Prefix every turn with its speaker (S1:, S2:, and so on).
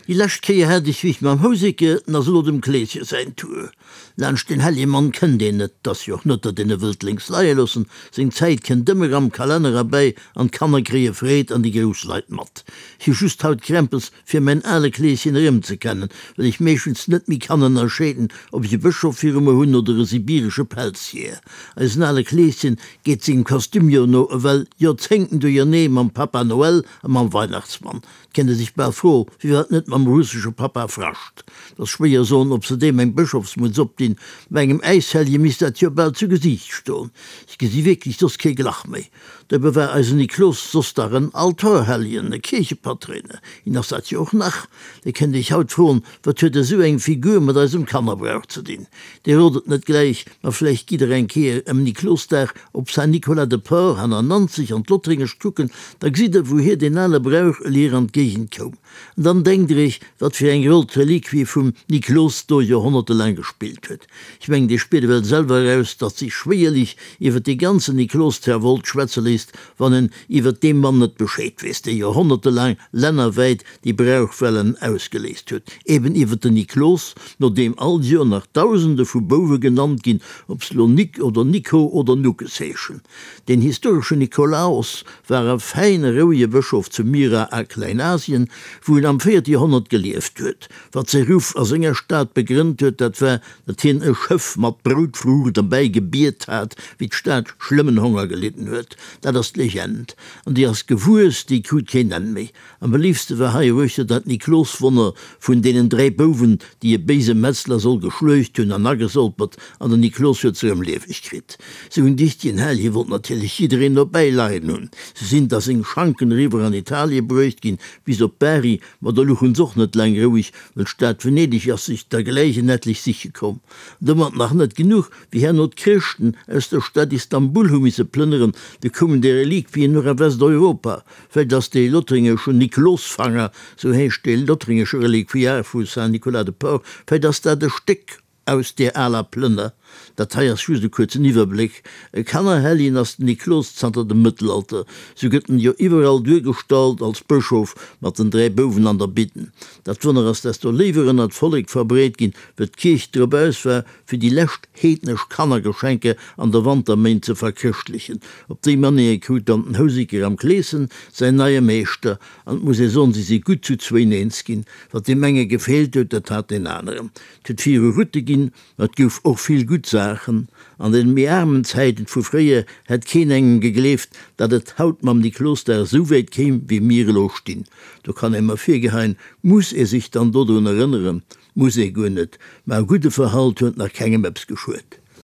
S1: Déi lescht Kéier hat ech wéi mam Houséke, 't ass elo dem Kleeschen säin Tour. Laanscht den Heljemann kënnt een net, 't ass jo och net, datt een e wëllt lénks leie loossen, seng Zäit kënnt ëmmer am Kalenner erbäi an d'Kanner kréie Freed an déi grouss Leit mat. Ech hu just haut Krämpes fir mäin ale Kleeschen erëmzekennen, well ech meeschtens net méi kann ënnerscheeden, ob ech e Bëschof viru mer hunn oder e sibiresche Pelzjeeër. Eisen ale Kleeschen geet sengem Kostüm jo no ewell Joerzéngten duerjernee mam Papa Noël a mam Weihnachtsmann. 't kéint ee sech bal froen, firwat net mam russesche Papa Frascht. 't ass schwéier soen, ob se deem eng Bëschofsmutz opdinn. Bei engem Äishellje misst dat jo bal zu Gesiicht stoen. Ech gesi wierklech soss kee Glach méi. Dobäi war eisen Niklos soss dach en Altorhelljen, e Kierchepatréiner. Hien ass dat jo och nach. Dir kënnt iech haut froen, Wat huet esou eng Figur mat eisem Kannerbrauch ze dinn? Dir rot et net gläich, ma vläicht gitt der eng Kéier ëm Niklosdag op Saint-Nicolas-de-Port hanner Nanzeg an d'Lottréngescht kucken, da gesitt der, wouhier deen ale Brauch elier an d'Géigend koum. An dann denkt der iech, wat fir eng Roll d'Reliquie vum Niklos do joerhonnertelaang gespillt huet. Ech mengen, Dir spiert ewell selwer eraus, datt sech schwéierlech iwwer dee ganzen Niklostrawolt schwätze léisst, wann en iwwer dee Mann net Bescheed weess, dee joerhonnertelaang lännerwäit déi Brauchwellen ausgeléist huet, eben iwwer den Niklos, no deem all Joer nach Dausende vu Bouwe genannt ginn, ob se lo Nik oder Nico oder Nuckes heeschen. Den historeschen Nikolaos war e fäine, rouege Bëschof zu Myra a Kleinasien, wou en am véierte Joerhonnert gelieft huet. Wat säi Ruff a senger Stad begrënnt huet, dat war, datt hien e Schëff mat Broutfruucht erbäi gebiet hat, wéi d'Stad schlëmmen Honger gelidden huet. Dat ass d'Legend, an déi ass gewuess, déi krut keen Enn méi. Am beliefste war hei eruechter dat Nikloswonner vun deenen 3 Bouwen, déi e béise Metzler soll geschluecht hunn an agesolpert, an den Niklos huet se erëm lieweg kritt. Sou en dichtegen Hellje wollt natierlech jiddereen dobäi leien hunn. Se sinn da seng Schanken eriwwer an Italie bruecht ginn, bis op Bari, ma do luchen s'och net laang roueg, well d'Stad Venedeg ass sech der gläich en etlech siche komm. Domat nach net genuch, wéi herno d'Chrëschten aus der Stad Istanbul hu misse plënneren, du koumen déi Reliquien och a Westeuropa. Vläicht ass dee lothringesche Niklosfanger, sou heescht dee lothringesche Reliquiar vu Saint-Nicolas-de-Port, vläicht ass dat e Stéck aus deer aler Plënner. Dat hei ass just e kuerzen Iwwerbléck. E Kannerhelljen ass den Niklos zanter dem Mëttelalter. Sou gëtt en jo iwwerall duergestallt als Bëschof mat den 3 Bouwen an der Bidden. Dat Wonner ass desto léiwer ënner d'Vollek verbreet ginn, wëll d'Kierch drop aus war, fir déi lescht heednesch Kannergeschenke an de Wanterméint ze verchrëschtlechen. Op déi Manéier krut dann den Houseker am Kleeschen säin neie Meeschter, an et muss ee soen, si si gutt zu zwéin eens ginn. Wat deem enge gefeelt huet, dat hat deen aneren. Et huet vill Route ginn, ma et gouf och vill gutt Saachen. An den méi aarmen Zäiten vu fréier hätt keen engem gegleeft, datt et haut mam Niklosdag esou wäit kéim, wéi mir elo stinn. Do kann ee mer virgeheien, muss ee sech dann dodrun erënneren? Muss ee guer net, ma e gudde Verhalt huet nach kengem eppes geschuet.